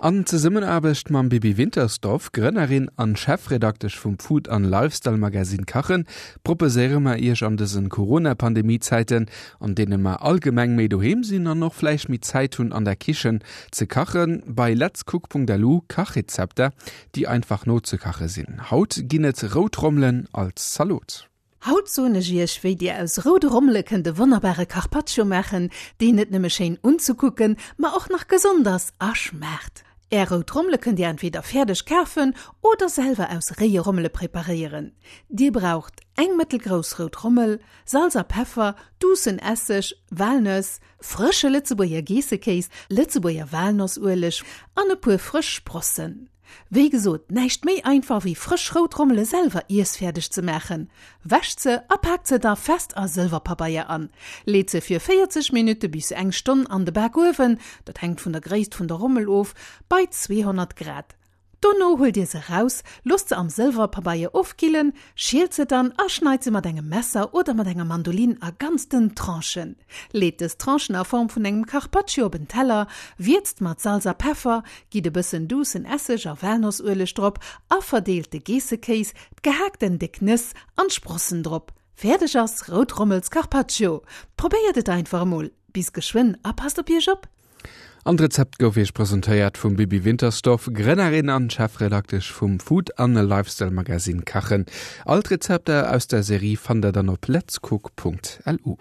An Zesummenaarbecht mam Bibi Wintersdorf, Grënnerin an Chefredaktesch vum Food an Lifestyle Magazine Kachen, proposéiere mer Iech an dësen Corona-Pandemie-Zäiten, an deene mer allgemeng méi doheem sinn an och vläicht méi Zäit hunn an der Kichen ze kachen, bei letscook.lu Kachrezepter, déi einfach nozekache sinn. Haut ginn et rout Rommelen als Zalot. Haut soen ech iech wéi dir aus roude Rommele kënnt e wonnerbare Carpaccio maachen, deen net nëmme schéin unzekucken, ma och nach gesond ass a schmaacht. Är rout Rommele kënnt dir entweder fäerdeg kafen oder selwer aus réie Rommele preparéieren. Dir braucht eng mëttelgrouss rout Rommel, Salz a Peffer, duussen Esseg, Walnëss, frësche Lëtzebuerger Geessekéis, Lëtzebuerger Walnossueleg an e puer frësch Sprossen. Wéi gesot, näischt méi einfach wéi frësch rout Rommele selwer iessfäerdeg ze maachen. Wäscht se a paakt se da fest a Sëlwerpabeier an. Leet se fir 40 Minutte bis eng Stonn an de Bakuewen, dat hänkt vun der Gréisst vun der Rommel of, bei 200 Grad. Dono huelt dir se raus, loosst se am Sëlwerpabeier ofkillen, schielt se dann a schneit se mat engem Messer oder mat enger Mandolin a ganz dënn Tranchen. Leet dës Tranchen a Form vun engem Carpaccio op en Teller, wierzt mat Salz a Peffer, gitt e bëssen duussen Esseg a Walnossueleg drop a verdeelt de Geessekéis, d'gehaakten déck Nëss an d'Sprossen drop. Fäerdeg ass Rout Rommels Carpaccio. Probéiert et einfach emol. Bis geschwënn a passt op iech op! An d'Rezept gouf iech presentéiert vum Bibi Wintersdorf, Grënnerin an Chefredaktesch vum Food an Lifestyle Magazine Kachen. All d'Rezepter aus der Serie fannt der dann op letscook.lu.